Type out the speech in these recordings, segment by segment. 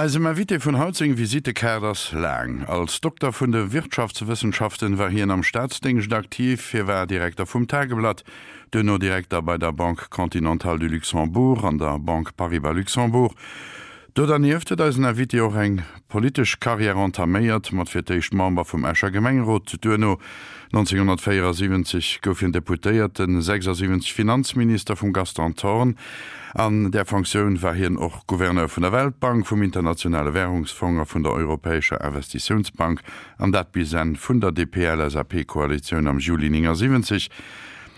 Eisem Invité vun haut seng Visittekaart ass laang. Als Dokter vun de Wirtschaftswëssenschaften war hien am Staatsdéngscht aktiv. Hie war Direkter vum Tageblatt, duerno Direkter bei der Banque Continentale du Luxembourg an der Banque Paribas Luxembourg. Do dernieft huet eisen Invité och eng politesch Karriär entaméiert, mat fir d'éischt Member vum Escher Gemengerot, duerno 1974 gouf hien Deputéierten, 76 Finanzminister vum Gaston Thorn. An där Fonctioun war hien och Gouverneur vun der Weltbank, vum Internationale Währungsfong a vun der Europäescher Investitiounsbank, an dat bis Enn vun der DP-LSAP-Koalitioun am Juli 79.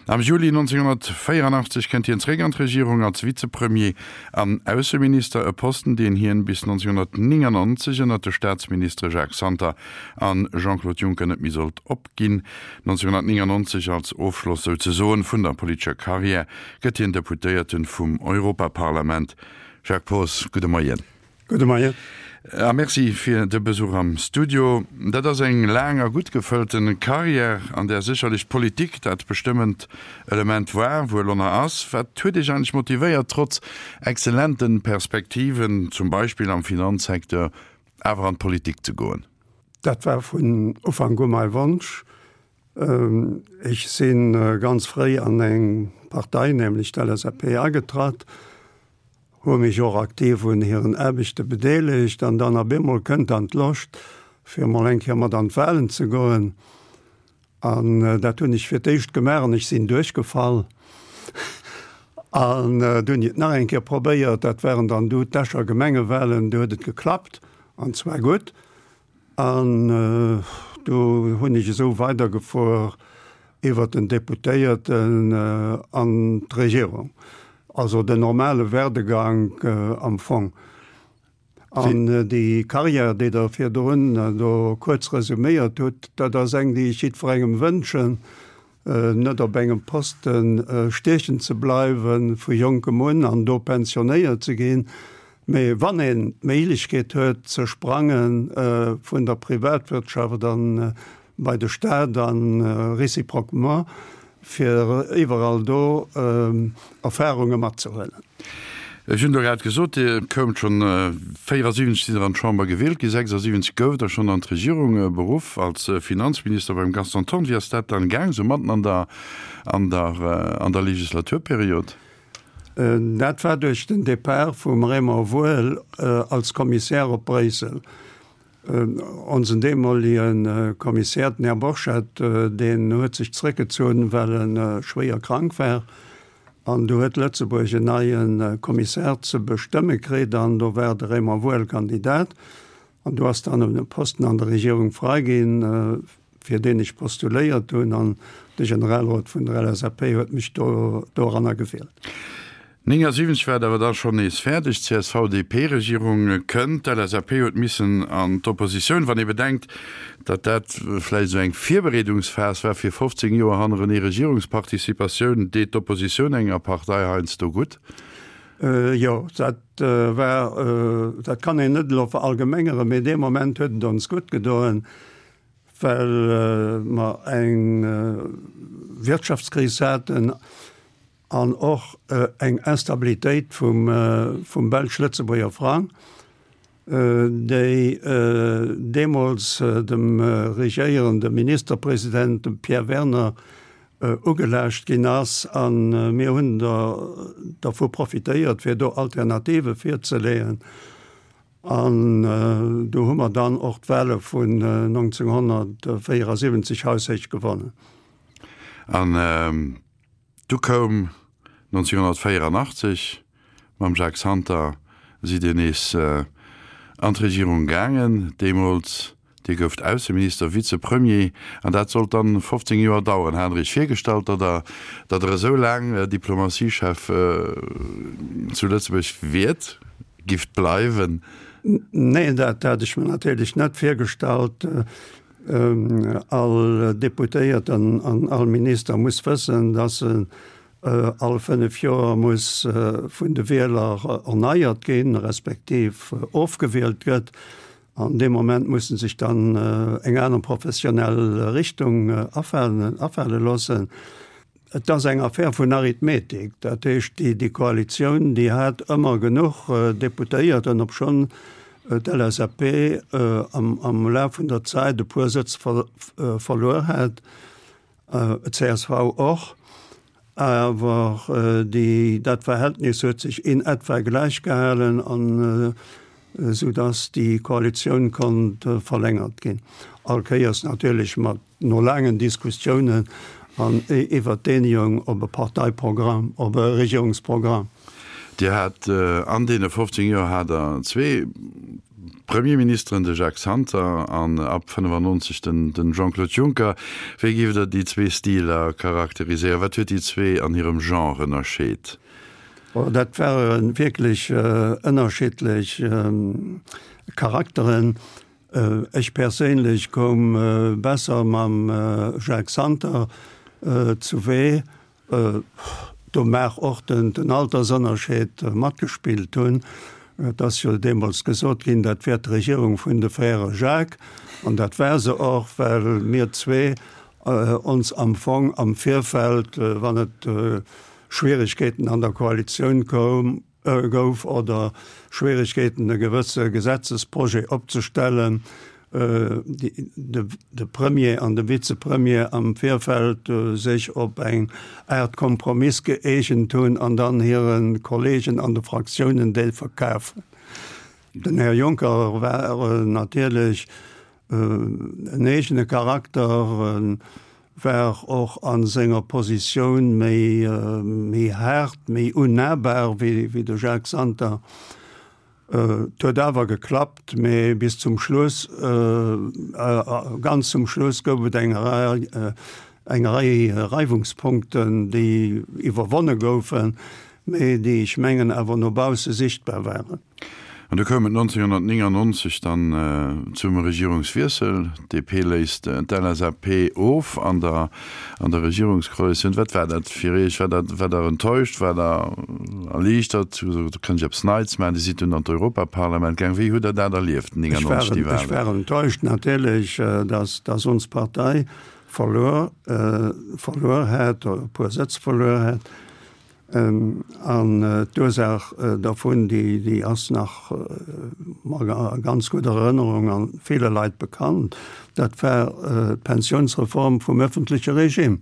Am Juli 1984 kënnt hien zeréck an d'Regierung als Vizepremier an Ausseminister, e Posten, deen hien bis 1999 ënner de Staatsministere Jacques Santer an Jean-Claude Juncker net méi sollt opginn. 1999, als Ofschloss souzesoen vun der politescher Karriär, gëtt hien Deputéierten vum Europaparlament. Jacques Poos, gudde Moien. Gudde Moien. A Merci fir de Besuch am Studio. Dat ass eng laang a gutt gefëllten Carrière, an där sécherlech d'Politik dat bestëmmend Element war, wuel ënner ass. Wat huet Iech eigentlech motivéiert, trotz exzellenten Perspektiven, zum Beispill am Finanzsecteur, awer an d'Politik ze goen? Dat war vun Ufank u mäi Wonsch. Ech si ganz fréi an eng Partei, nämlech d'LSAP, agetratt, hu mech och aktiv un hiren Aarbechte bedeelegt an dann op eemol kënnt dann d'Loscht, fir emol eng Kéier mat an d'Wahlen ze goen. An dat hunn ech fir d'éischt gemaach an ech sinn duerchgefall. An du hunn ech et nach eng Kéier probéiert, dat waren dann du d'Escher Gemengewahlen, du huet et geklappt an zwar gutt. An do hunn ech esou weidergefuer iwwert den Deputéierten an d'Regierung. Also den normale Werdegank am Fong. An déi Carrière, déi Der virdrun do kuerz resuméiert hutt, dat ass eng, déi ech jiddwerengem wënschen, net op engem Poste stiechen ze bleiwe vu jonkem un an do pensionéiert ze ginn, mee wann een d'Méiglechkeet huet ze sprange vun der Privatwirtschaft an bei de Staat a réciproquement, fir iwwerall do Erfahrunge matzehuelen. Ech hunn do grad gesot, Dir koumt schonn 74 sidd Der an d'Chamber gewielt ginn, 76 gouft Der schonn an d'Regierung beruff als Finanzminister beim Gaston Thorn. Wéi ass dat dann gaang, sou matten an der, an der, an der Legislaturperiod? Dat war duerch den Depart vum Raymond Woehl als Kommissär op Bréissel. Onsen deemolige Kommissär, den Här Borchert, deen huet sech zréckgezunn, well e schwéier krank war. An du huet Lëtzebuerg en neie Kommissär ze bestëmme kritt an do war de Raymond Woehl Kandidat. An du ass dann e Posten an der Regierung frai ginn, fir deen ech postuléiert hunn an de Generalrot vun der LSAP huet mech do doranner gewielt. 79 war et awer da schonn nees fäerdeg, D'CSV-DP-Regierung kënnt, d'LSAP huet missen an d'Oppositioun. Wann ee bedenkt, datt dat vläicht esou eng Virbereedungsphas war fir 15 Joer hannerenee Regierungsparticipatioun, deet d'Oppositioun enger Partei heiansdo gutt. Jo, dat war, dat kann een net elo verallgemengeren, mee dee Moment huet et ons gutt gedoen, well mer eng Wirtschaftskris haten an och eng Instabilitéit vum belsch-lëtzebuerger Frang, déi deemools dem regéierende Ministerpresident, dem Pierre Werner, ugelaascht ginn ass. A mir hunn dervu profitéiert, fir do Alternative virzeleeën. An do hu mer dann och d'Wahle vun 1974 haushéich gewonnen. An du koum 1984 mam Jacques Santer, sidd Dir nees an d'Regierung gaangen. Deemools Dir gouft Ausseminister, Vizepremier, an dat sollt dann 15 Joer daueren. Hat Der Iech virgestallt, datt Der, datt Der esou laang Diplomatiechef zu Lëtzebuerg wiert, gifft bleiwen? Neen, dat hat ech mir natierlech net virgestallt. All Deputéierten an all Minister muss wëssen, datt en all 5 Joer muss vun de Wieler erneiert ginn, respektiv ofgewielt gëtt. An dee Moment muss en sech dann eng aner professionell Richtung afale loossen. Et ass eng Affär vun Arithmetik. Dat heescht, déi Koalitioun, déi hat ëmmer genuch Deputéierten, obschonn. d'LSAP am Laf vun der Zäit e puer Sëtz verluer hat, d'CSV och, awer déi, dat Verhältnis huet sech in etwa gläich gehalen an esou datt déi Koalitioun konnt verlängert ginn. All Kéiers natierlech mat No laangen Diskussiounen an iwwert d'Eenegung op e Parteiprogramm, op e Regierungsprogramm. Dir hat an deene 15 Joer hat Der zwee Premierministeren, de Jacques Santer an ab 95 den Jean-Claude Juncker. Wéi géift Der déi zwee Stiler charakteriséieren? Wat huet déi zwee an hirem Genre ënnerscheet? Dat ware wierklech ënnerschiddlech Charakteren. Ech perséinlech koum besser mam Jacques Santer zu Wee. Do maach och den Altersënnerscheed matgespillt hunn. Et ass jo deemools gesot ginn, dat wär d'Regierung vun de Frères Jacques. An dat war se och, well mir zwee ons am Fong am Virfeld, wann et Schwieregkeeten an der Koalitioun koum, gouf oder Schwieregkeeten e gewësse Gesetzesprojet opzestellen, de Premier an de Vizepremier am Virfeld sech op eng Aart Kompromiss gëeegent hunn an dann hire Kollegen an de Fraktiounen déi verkafen. Den Här Juncker war natierlech en eegene Charakter, war och a senger Positioun méi méi haart, méi unnahbar wéi de Jacques Santer. Et huet awer geklappt, mee bis zum Schluss, ganz zum Schluss gouf et eng Rei eng Rei Reiwungspunkten, déi iwwerwonne goufen, mee déi, ech mengen, awer no bausse sichtbar waren. An du koum et 1999 dann zum Regierungswiessel. D'DP léist d'LSAP of an der an der Regierungskoalitioun. Wat war dat fir Iech? War dat, war Der enttäuscht? War Der erliichtert? Hu gesot, do kënnt ech eppes Neits maachen. Dir sidd dunn an d'Europaparlament gaang. Wéi hutt Der dat erlieft, 99, déi Wahlen? Ech war enttäuscht natierlech, datt datt ons Partei verluer verluer hat, e puer Sëtz verluer hat. An d'Ursaach dervun, déi ass nach a ganz gudder Erënnerung a ville Leit bekannt, dat war d'Pensiounsreform vum öffentleche Regime.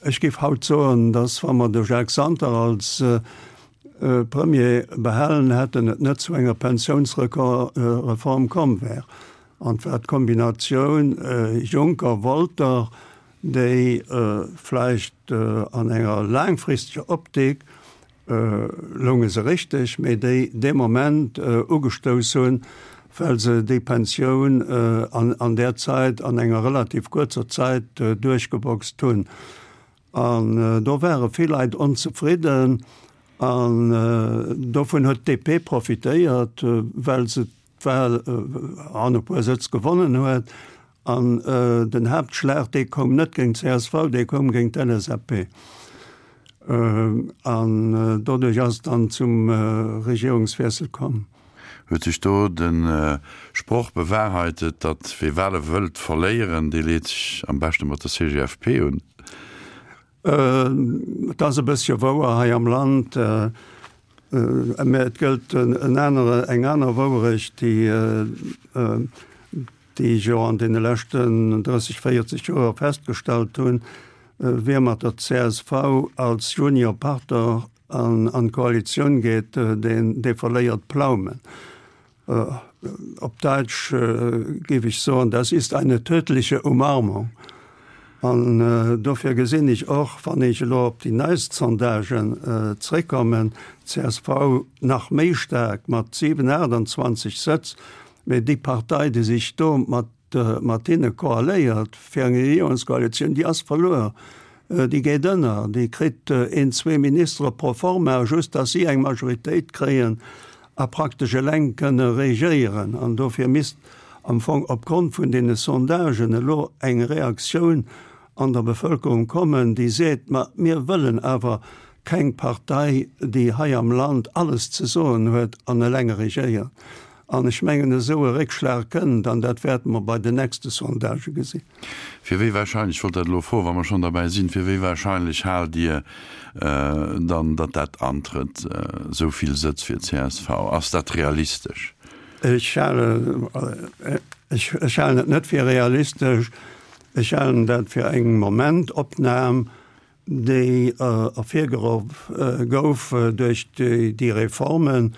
Ech géif haut soen, dass, wa mer de Jacques Santer als Premier behalen hätten, et net zu enger Pensiounsreform komm wär. An et war d'Kombinatioun Juncker-Wolter, déi vläicht an enger laangfristeger Optik lounge se richteg, mee déi dee Moment ugestouss hunn, well se déi Pensioun an där Zäit, an enger relativ kuerzer Zäit duerchgeboxt hunn. An do ware vill Leit onzefridden an dovun huet d'DP profitéiert, well se d'Wahl an e puer Sëtz gewonnen huet. An den Haaptschlag, dee koum net géint d'CSV, dee koum géint d'LSAP. An doduerch ass et dann zum Regierungswiessel komm. Huet sech do de Sproch bewahrheitet, datt wee Wahle wëllt verléieren, dee leet sech am beschte mat der CGFP un? Et ass e bëssche wouer hei am Land, mä et gëllt en anere, eng aner Wouerecht, déi, déi ech jo an deene leschten 30, 40 Joer festgestallt hunn, Wie mat der csv als Juniorpartner an d'Koalitioun geet, deen, dee verléiert Plaumen. Op Däitsch géif ech soen, das ist eine tödliche Umarmung. An dofir gesinn ech och, wann ech elo op déi neist Sondagen zréckkommen, d'CSV nach méi staark mat 7, 28 Sëtz, mee déi Partei, déi sech do mat mat hinne koaléiert fir eng Regierungskoalitioun, déi ass verluer, déi geet ënner, déi kritt een, zwee Ministere pro forma, just datt si eng Majoritéit kréien a praktesch eleng kënne regéieren. An dofir misst am Fong opgrond vun deene Sondagen elo eng Reaktioun an der Bevëlkerung kommen, déi seet, ma mir wëllen awer keng Partei, déi hei am Land alles ze soen huet an eleng regéiert. An ech mengen, esou e Réckschlag kënnt, an dat wäerte mer bei den nächste Sondagë gesinn. Fir wéi wahrscheinlech, ech wollt dat elo froen, wa mer schonn derbäi sinn, fir wéi wahrscheinlech haalt Dir dann, datt dat antrëtt, esou vill Sëtz fir csv? Ass dat realistesch? Ech halen, ech halen et net fir realistesch. Ech halen dat fir eng Momentopnam, déi ervirgeruff gouf duerch déi Reformen,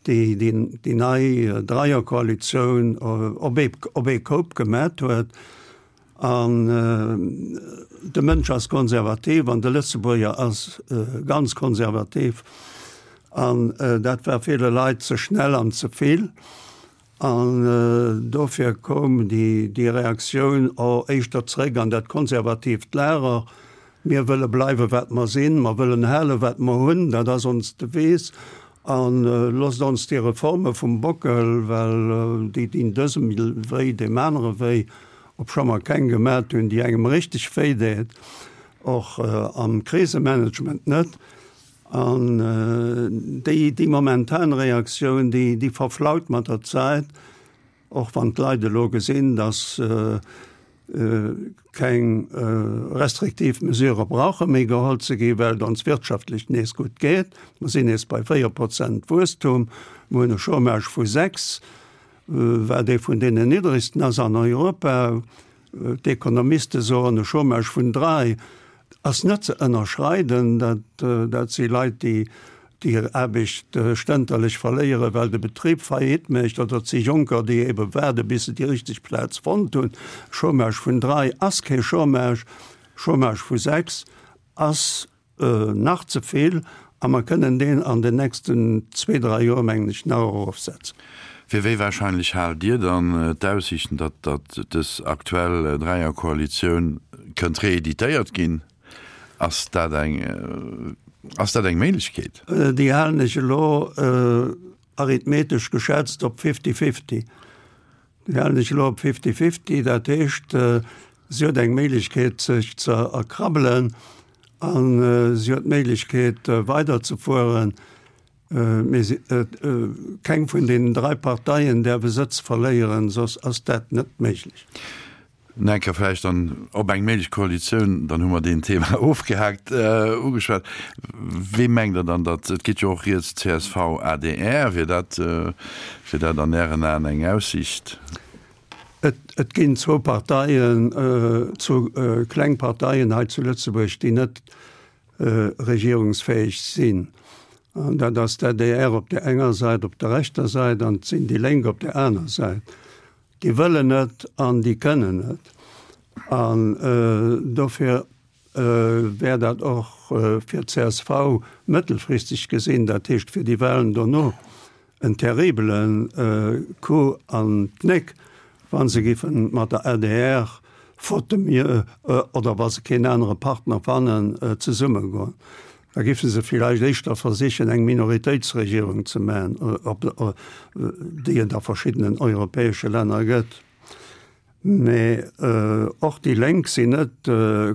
déi déi nei Dreierkoalitioun op ee Koup gemat huet. An de Mënsch ass konservativ an de Lëtzebuerger ass ganz konservativ. An dat war ville Leit ze schnell an ze vill. An dofir koum déi Reaktioun och éischter zréck an dat konservatiivt Lager, Mir wëlle bleiwe wat mer sinn, mer wëllen hale wat mer hunn, dat ass ons Devise, a loosst ons déi Reforme vum Bockel, well déi dinn dësem wéi, deem anere wéi, obscho mer keng gemat hunn, déi engem richteg wéi deet, och am Krisemanagement net. An déi, déi momentan Reaktioun, déi, déi verflaut mat der Zäit, och wann d'Leit elo gesinn, datt keng restriktiv Mesurë brauche méi geholl ze ginn, well et ons wirtschaftlech nees gutt geet. Mer sinn nees bei 4 Prozent Wuesstum, mer hunn e Chômage vu 6, wat ee vun deenen niddregsten ass an Europa. D'Ekonomiste soen, e Chômage vun 3 ass net ze ënnerschreiden. Dat si Leit, déi hir Aarbecht stënterlech verléieren, well de Betrib Faillite mécht, oder et si Jonker, déi ebe waarde bis se déi richteg Plaz fonnt hunn. Chômage vun 3 ass kee Chômage, Chômage vu 6 ass Nach ze vill, a mer kënnen deen an den nächsten zwee, dräi Joer, mengen ech, nach erofsetzen. Fir wéi wahrscheinlech haalt Dir dann d'Aussiichten, datt datt dës aktuell Dräierkoalitioun kënnt reeditéiert ginn? Ass dat eng, ass dat eng Méiglechkeet? Déi halen ech elo arithmetesch geschätzt op fifty-fifty. Déi halen ech elo op fifty-fifty, dat heescht, si huet eng Méiglechkeet sech ze erkrabbelen a si huet d'Méiglechkeet weiderzefueren, mee si, keng vun deenen drai Parteien däerf e Sëtz verléieren, soss ass dat net méiglech. Nach eng Kéier vläicht dann op eng méiglech Koalitioun, dann hu mer deen Thema ofgehaakt, ugeschwat. Wee mengt Der dann, datt, et geet jo och rieds csv, adr, wier dat, wier dat an Ären Aen eng Aussiicht? Et ginn zwou Parteien, zwou kleng Parteien hei zu Lëtzebuerg, déi net regierungsfäeg sinn. An dat ass d'ADR op där enger Säit, op der rechter Säit, an et sinn déi Lénk op där aner Säit. Déi wëllen net an déi kënnen net. An dofir wär dat och fir d'CSV mëttelfristeg gesinn, dat heescht fir déi Wahlen dono, en terribele Coup an d'Knéck, wa se géife mat der adr, faute de mieux, oder wa se keen anere Partner fannen, zesummegoen. Da géife se villäicht éischter versichen, eng Minoritéitsregierung ze maachen, déi et a verschiddenen europäesche Länner gëtt. Mee och déi Lénk sinn net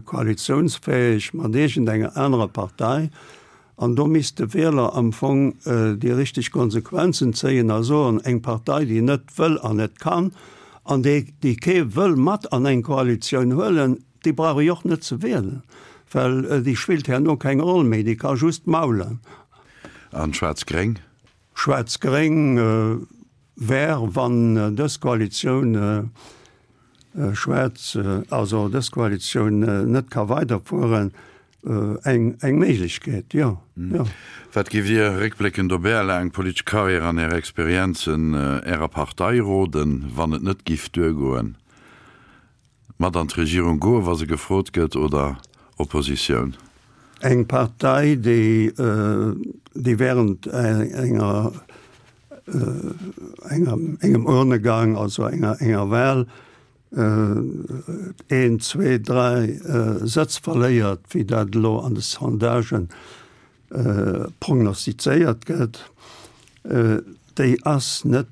koalitiounsfäeg mat iergendenger anerer Partei. An do misst de Wieler am Fong déi richteg Konsequenzen zéien a soen, eng Partei, déi net wëll an net kann an déi, déi kee wëll mat an eng Koalitioun huelen, déi brauch ech och net ze wielen, well déi spillt herno keng Roll méi, déi ka just maulen. An Schwaarz-Gréng? Schwaarz-Gréng wär, wann dës Koalitioun schwaarz, also dës Koalitioun net ka weiderfueren, eng eng Méiglechkeet, jo, jo. Wat géift Dir, réckbléckend op Är laang politesch Karriär an Är Experienzen, Ärer Partei roden, wann et net giff duergoen? Mat an d'Regierung goen, wa se gefrot gëtt, oder Oppositioun? Eng Partei, déi, déi während enger, enger, engem Urnegang, also enger, enger Wahl, een, zwee, dräi Sëtz verléiert, wéi dat elo an de Sondagen prognostizéiert gëtt, déi ass net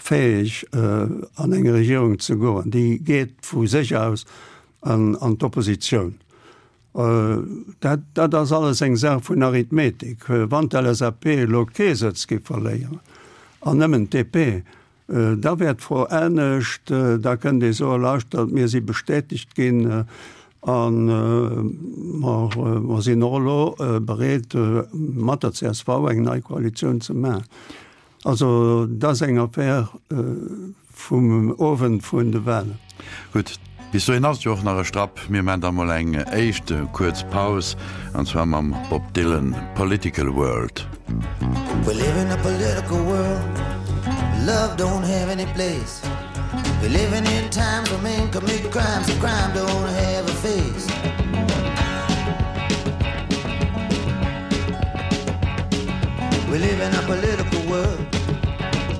fäeg an eng Regierung ze goen. Déi geet vu sech aus an d'Oppositioun. Dat, dat ass alles eng Saach vun Arithmetik. Wann d'LSAP elo kee Sëtz géif verléieren. An nëmmen d'DP, da wär d'Fro anescht. Da kënnt ee soen, Lauschtert, mir si bestätegt ginn a mer sinn och elo bereet, mat der csv eng nei Koalitioun ze maachen. Also dat ass eng Affaire vum Owend vun de Wahlen. Gutt, bis dohin ass et jo och nach e Strapp. Mir maan da mol eng éischt kuerz Paus, an zwar mam Bob Dylan, Political World. We live in a political world Love don't have any place We're living in times when men commit crimes And crime don't have a face We live in a political world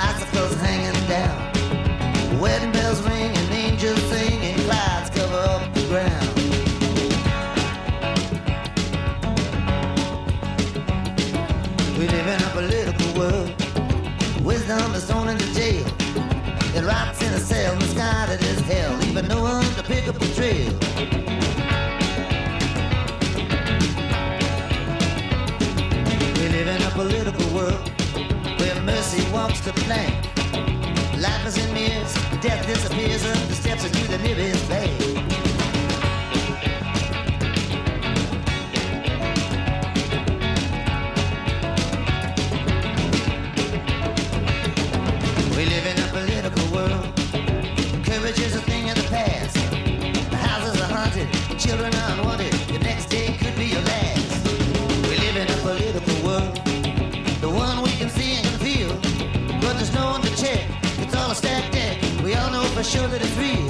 Icicles hanging down Wedding bells ring and angels sing And clouds cover up the ground We live in a political world Wisdom is thrown into jail It rots in a cell misguided as hell Leaving no one to pick up the trail We live in a political world Where mercy walks the plank Life is in mirrors, death disappears up the steps into the nearest bank. We live in a political world. Courage is a thing of the past. The houses are haunted, children are unwanted. The next day could be your last. We live in a political world. The one we can see and can feel. But there's no one to check. It's all a stacked deck. We all know for sure that it's real.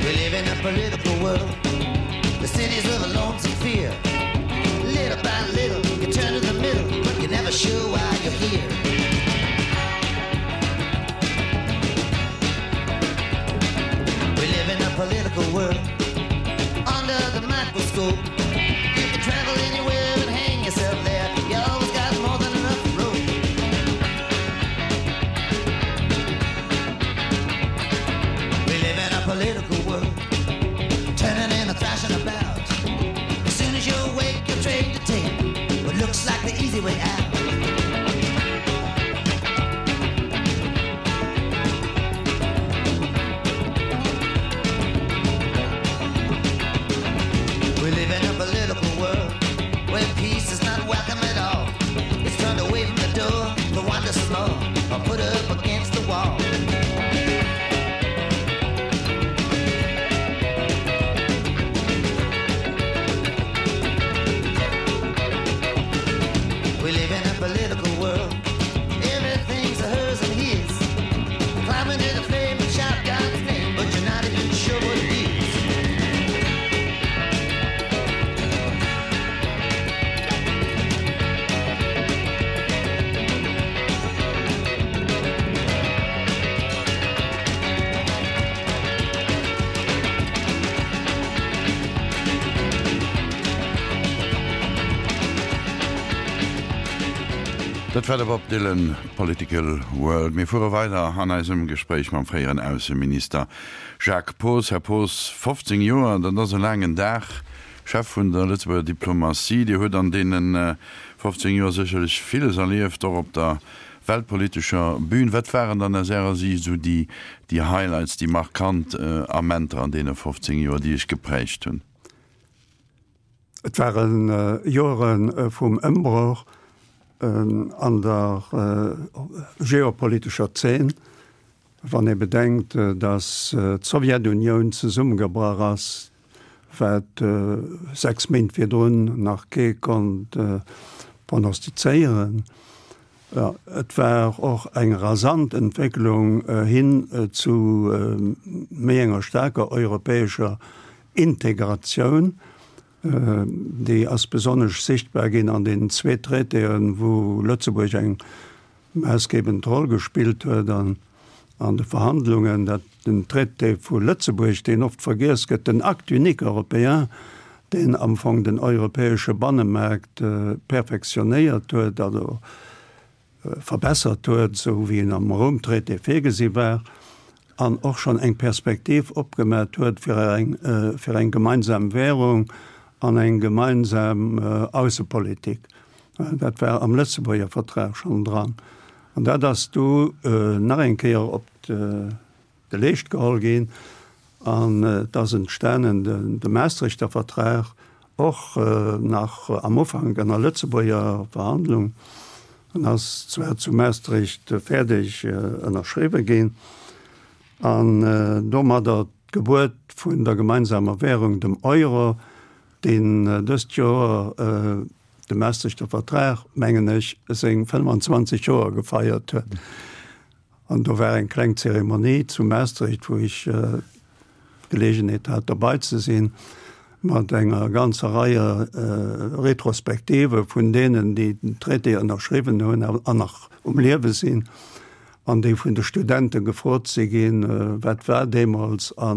We live in a political world. The cities of a lonesome fear. Little by little, you turn to the middle, but you're never sure why you're here. We live in a political world under the microscope. You can travel anywhere and hang yourself there. You always got more than enough room. We live in a political world, turning and thrashing about. As soon as you awake, you're trained to take what looks like the easy way out. We live in a political world where peace is not welcome at all. It's turned away from the door to wander some more or put up against the wall. We live in a political world. Everything's a hers and his. Climb into the flame and shout God's name, but you're not even sure what it is. Dat war de Bob Dylan, Political World. Mir fuere weider an eisem Gespréich mam fréieren Ausseminister Jacques Poos. Här Poos, 15 Joer, dat ass e laangen Dag, Chef vun der Lëtzebuerger Diplomatie. Dir hutt an deene 15 Joer sécherlech villes erlieft, och op der weltpolitescher Bühn. Wat waren dann aus Ärer Siicht esou déi Highlights, déi markant Amenter an deene 15 Joer, déi Iech geprägt hunn? Et ware Joere vum Ëmbroch an der geopolitescher Zeen, wann ee bedenkt, datt d'Sowjetunioun zesummegebrach ass, wat 6 Méint virdrun nach kee konnt prognostizéieren. Et war och eng rasant Entwécklung hin zu méi enger staarker europäescher Integratioun. Déi ass besonnesch sichtbar ginn an deenen zwee Traitéen, wou Lëtzebuerg eng maassgebend Roll gespillt huet an an de Verhandlungen, dat den Traité vu Lëtzebuerg, deen oft vergiess gëtt, den Acte unique européen, deen am Fong den europäesche Bannemaart perfektionéiert huet, also verbessert huet, esou wéi en am Roum-Traité virgesi war. an och schonn eng Perspektiv opgemat huet fir eng, fir eng gemeinsam Währung an eng gemeinsam Aussepolitik. Dat war am Lëtzebuerger Vertrag schonn dran. An dat ass du nach eng Kéier op de Leescht geholl ginn an et ass entstanen de Maastrichter Vertrag, och nach am Ufank ënner Lëtzebuerger Verhandlung. En ass zwar zu Maastricht fäerdeg ënnerschriwwe ginn an domadder d'Gebuert vun der gemeinsamer Währung, dem Euro, deen dëst Joer de Maastrichter Vertrag, mengen ech, seng 25 Joer gefeiert huet. An do war eng kleng Zeremonie zu Maastricht, wou ech d'Geleegenheet hat dobei ze sinn, mat enger ganzer Rei Retrospektive vun deenen, déi den Traité ënnerschriwwen hunn an nach um Liewe sinn, an déi vun de Studente gefrot si ginn, wat war deemools a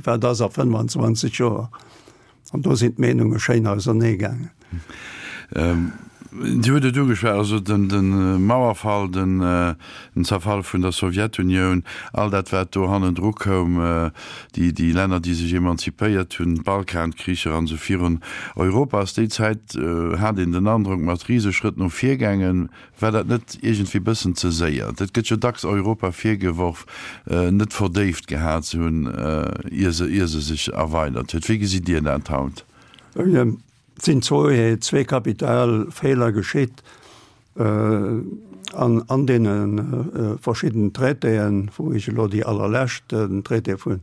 wat ass a 25 Joer. An do sinn d'Meenunge schéin ausernee gaangen. Dir hutt et ugeschwat, also de Mauerfall, den Zerfall vun der Sowjetunioun, all dat wat do hannendru koum, déi Länner déi sech emanzipéiert hunn, d'Balkankricher an esou virun. Europa ass déi Zäit, hat een den Androck, mat Riseschrëtt no vir gaangen. War dat net iergendwéi bëssen ze séier? Et gëtt jo dacks Europa virgeworf, net verdéift gehat ze hunn, ier se, ier se sech erweidert huet. Wéi gesitt Dir dat haut? Et sinn zwee kapital Feeler geschitt an, an deene verschidden Traitéen, wou ech elo déi allerlescht, den Traité vun,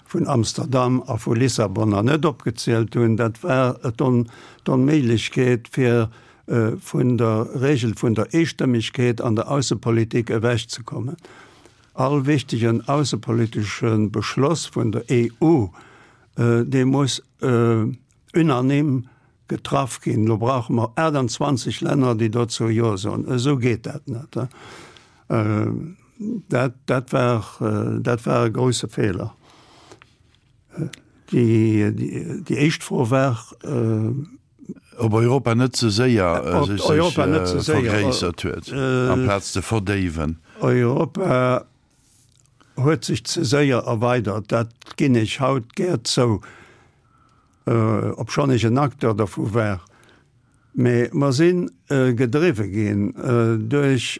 vun Amsterdam a vu Lissabon nach net opgezielt hunn. Dat war d'Onméiglechkeet, fir vun der Regel vun der Eestëmmegkeet an der Aussepolitik ewechzekommen. All wichtegen aussepolitesche Beschloss vun der EU, dee muss unanime getraff ginn. Elo brauche mer 28 Länner, déi dozou Jo soen. Esou geet dat net. Dat, dat war, dat war e grouse Feeler. Déi, déi éischt Fro war. Ob Europa net ze séier sech vergréissert huet, amplaz ze verdéiwen. Europa huet sech ze séier erweidert, dat ginn ech haut gär zou, obschonn ech en Acteur dervu war. Mee mer si gedriwwe ginn duerch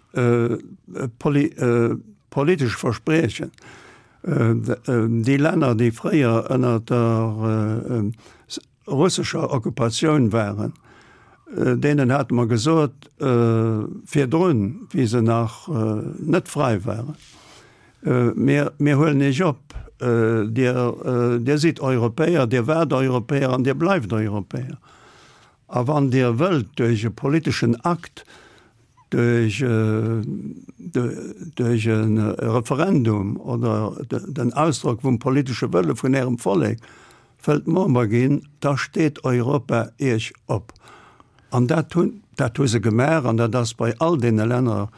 politesch Verspriechen. Déi Länner, déi fréier ënner der russescher Occupatioun waren, deenen hate mer gesot virdrun, wéi se nach net fräi waren, Mir, mir huelen Iech op, Dir, Dir sidd Europäer, Dir waart Europäer an Dir bleift Europäer. A wann Dir wëllt duerch e politeschen Akt, duerch, duerch e Referendum oder den Ausdrock vum politesche Wëlle vun Ärem Vollek wëllt Member ginn, da steet Europa Iech op. An dat hunn, dat hu se gemaach an dat ass bei all deene Länner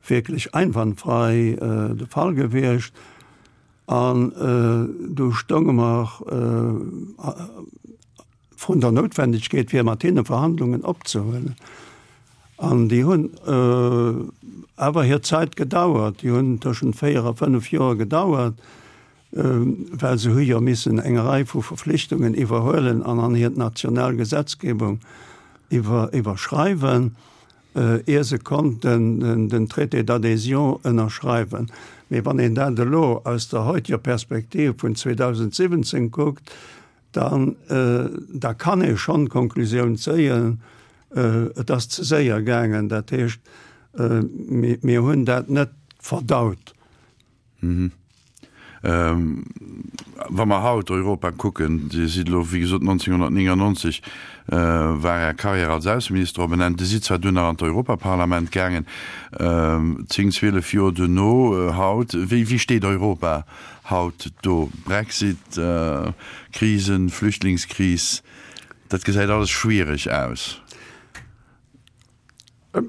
wierklech einwandfrei de Fall gewiescht. An du stounge mer vrun der Noutwendegkeet, fir mat hinne Verhandlungen opzehuelen. An déi hunn awer hir Zäit gedauert, déi hunn tëschent 4 a 5 Joer gedauert, well se hu jo missen eng Rei vu Verflichtungen iwwerhuelen an an hir national Gesetzgebung iwwerschreiwen, ier se konnten den Traité d'adhésion ënnerschreiwen. Mee wann een dat elo aus der heutiger Perspektiv vun 2017 kuckt, dann da kann ee schonn d'Konklusioun zéien, et ass ze séier gaangen. Dat heescht, mir hunn dat net verdaut. Wa mer haut Europa kucken, Dir sidd elo, wéi gesot, 1999 war Är Carrière als Ausseminister op en Enn. Dir sidd zwar dunn nach an d'Europaparlament gaangen, zéng, 12 Joer duerno. Haut, wéi steet Europa haut do? Brexit, Krisen, Flüchtlingskris, dat gesäit alles schwiereg aus.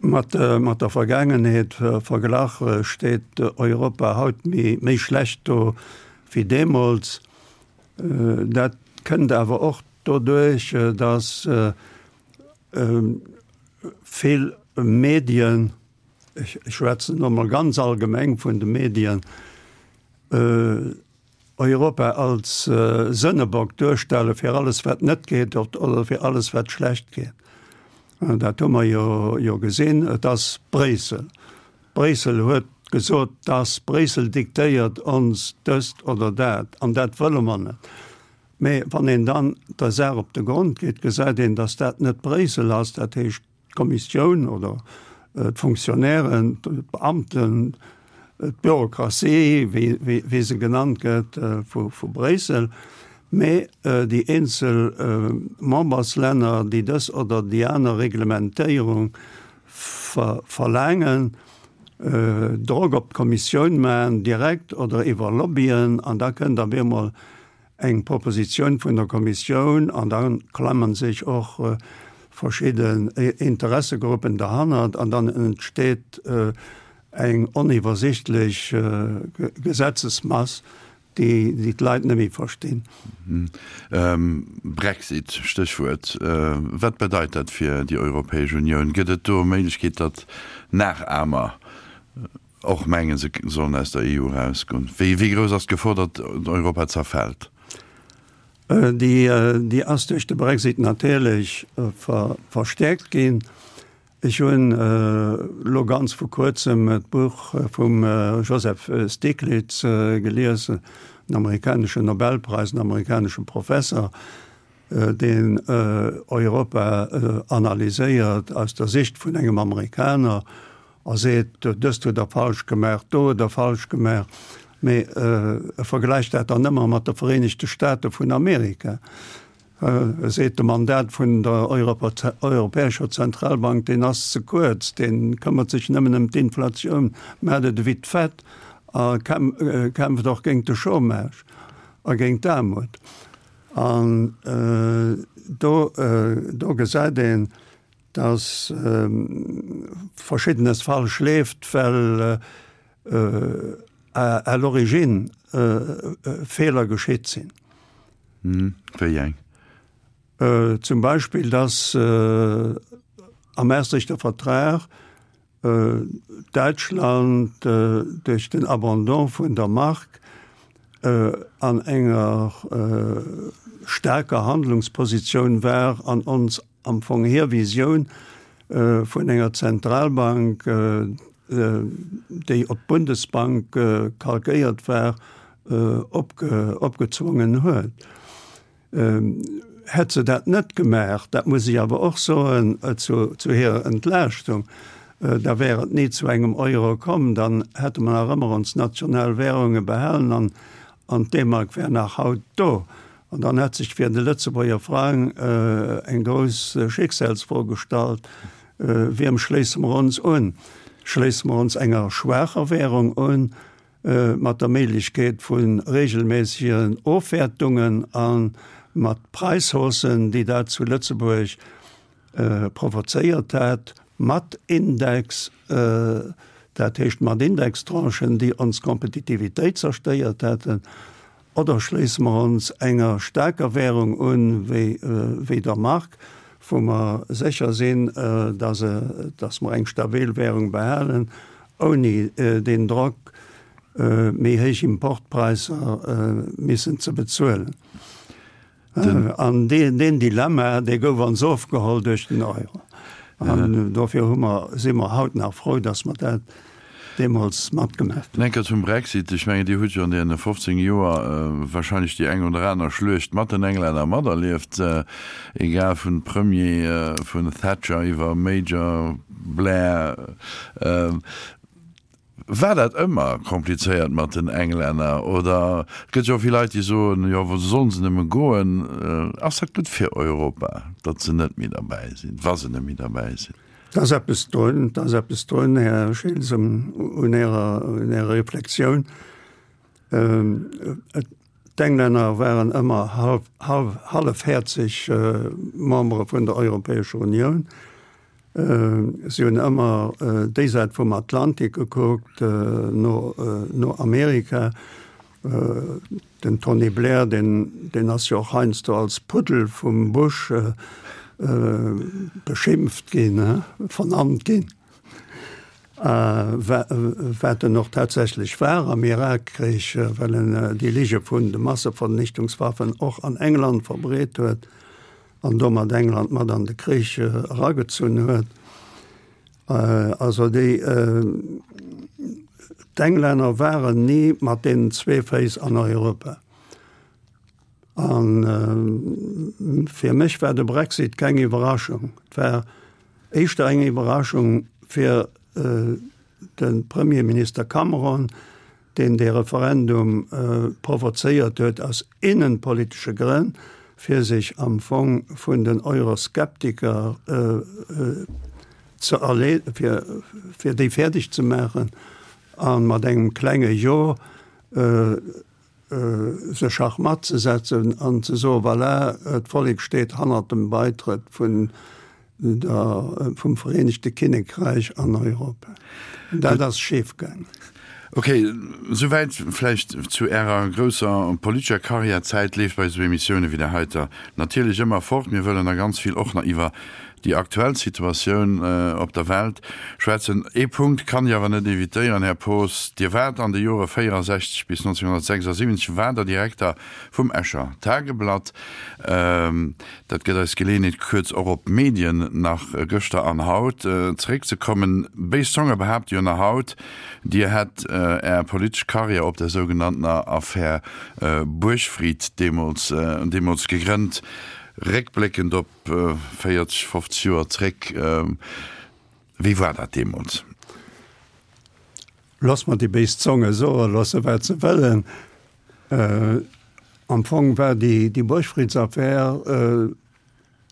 Mat der Vergaangenheet verglach steet Europa haut méi schlecht do wéi deemools. Dat kënnt awer och doduerch, datt vill Medien, ech schwätzen elo mol ganz allgemeng vun de Medien. Europa als Sënnebock duerstelle fir alles wat net geet oder fir alles wat schlecht geet. Dat hu mer jo jo gesinn. Et ass Bréissel. Bréissel huet gesot, dass Bréissel diktéiert ons dëst oder dat an dat wëlle mer net. Mee wann een dann der Saach op de Grond geet, gesäit een, dass dat net Bréissel ass, dat heescht d'Kommissioun oder d'Fonctionnairen, d'Beamten, d'Bürokratie, wéi se genannt gëtt vu Bréissel, mee déi eenzel Memberslänner, déi dës oder déi aner Reglementéierung verlaangen, Drock op d'Kommissioun maachen, direkt oder iwwer Lobbyen, an da kënnt op eemol eng Propositioun vun der Kommissioun an da klammen sech och verschidden Interessegruppen derhannert an dann entsteet eng oniwwersichtlech Gesetzesmass, déi d'Leit net méi verstinn. Brexit, Stéchwuert. Wat bedeit dat fir déi Europäesch Unioun? Gëtt et do Méiglechkeet, datt Nachahmer Och mengen, se sollen aus der EU erausgoen. Wéi grouss ass d'Gefor, datt Europa zerfält? Déi ass duerch de Brexit natierlech verstäerkt ginn. Ech hunn elo ganz vu kuerzem d'Buch vum Joseph Stiglitz gelies, en amerikaneschen Nobelpräis, en amerikanesche Professer, deen Europa analyséiert aus der Sicht vun engem Amerikaner a seet, dëst huet Der falsch gemaach, do huet Der falsch gemaach, mee e vergläicht dat dann ëmmer mat de Vereenegte Staate vun Amerika. E seet, de Mandat vun der Europäescher Zentralbank, deen ass ze kuerz, dee këmmert sech nëmmen ëm d'Inflatioun, maacht et ewéi d'Fed a kämpft och géint de Chômage a géint d'Aarmut. An do do gesäit een, datt Verschiddenes falsch leeft, well à l'origine Feeler geschitt sinn. Wéi eng? Zum Beispill, datt am Maastrichter Vertrag Däitschland duerch den Abandon vun der Mark an enger staarker Handlungspositioun war an ons am Fong hir Visioun vun enger Zentralbank, déi op d'Bundesbank kalkéiert war, opgezwongen huet. Hätt se dat net gemaach, dat muss ech awer och soen zu hirer Entlaaschtung, da wär et ni zu engem Euro komm, dann hätte mer nach ëmmer ons national Währunge behalen an an d'D-Mark wär nach haut do. An dann hätt sech fir de Lëtzebuerger Frang eng grouss Schicksalsfro gestallt, Wiem schléisse mer ons un? Schléisse mer ons enger schwaacher Währung un, mat der Méiglechkeet vu regelméissegen Ofwäertungen a mat Präishaussen, déi dat zu Lëtzebuerg provozéiert hat, mat Index, dat heescht mat Indextranchen, déi ons Kompetitivitéit zerstéiert hätten, Oder schléisse mer ons enger staarker Währung un, wéi der Mark, wou mer sécher sinn, dass mer eng stabil Währung behalen, ouni deen Drock, méi héich Importpräisser missen ze bezuelen? An deen Dilemma, dee gouf ons ofgeholl duerch den Euro. An dofir hu mer, si mer haut nach frou, dass mer dat deemools matgemaach hunn. Enker zum Brexit. Ech mengen, Dir hutt jo an deene 15 Joer wahrscheinlech déi eng oder aner Schluecht mat den Englänner materlieft, egal vun Premier, vun Thatcher iwwer Major, Blair. War dat ëmmer komplizéiert mat den Englänner oder et gëtt jo och vill Leit déi soen, jo wou sollen se nëmme goen? Ass dat gutt fir Europa, datt se net méi derbäi sinn, wa se net méi derbäi sinn? Et ass eppes drun, et ass eppes drun, Här Schiltz, un Ärer, un Ärer Reflexioun. D'Englänner waren ëmmer hallefhäerzeg Membere vun der Europäescher Unioun. Si hunn ëmmer déi Säit vum Atlantik gekuckt, no no Amerika. Den Tony Blair, deen deen ass jo och heiansdo als Puddel vum Bush beschimpft ginn, vernannt ginn. Wat en och tatsächlech war am Irakkrich, well en déi Lige vun de Massevernichtungswaffen och an England verbreet huet an domat England mat an de Krich eragezunn huet. Also déi d'Englänner waren ni mat deenen zwee Féiss an Europa. A fir mech war de Brexit keng Iwwerraschung. Et war éischter eng Iwwerraschung fir de Premierminister Cameron, deen dee Referendum provozéiert huet aus innenpolitesche Grënn, fir sech am Fong vun den Euroskeptiker ze erle fir déi fäerdeg ze maachen a mat engem klenge Jo se Schachmatt ze setzen an ze soen, voilà, d'Vollek steet hannert dem Beitrëtt vun der, vum Vereenegte Kinnekräich an Europa. Dat ass schif gaangen. Ok, souwäit vläicht zu Ärer grousser politescher Karriär. D'Zäit leeft bei esou Emissioune wéi där heiter natierlech ëmmer fort. Mir wëllen da ganz vill och nach iwwer déi aktuell Situatioun op der Welt schwätzen. Ee Punkt kann ech awer net evitéieren, Här Poos, Dir waart an de Jore 64 bis 1976 waart Der Direkter vum Escher Tageblatt. Dat gëtt eis d'Geleeënheet, kuerz och op d'Medien nach gëschter an haut zeréckzekommen. Béis Zonge behaapte jo nach haut, Dir hätt Är politesch Karriär op der sougenanntener Affär Buergfried deemools gegrënnt. Réckbléckend op 40, 50 Joer zréck, wéi war dat deemools? Looss mer déi béis Zonge soe loosse wat se wëllen. Am Fong war déi Buergfriedsaffär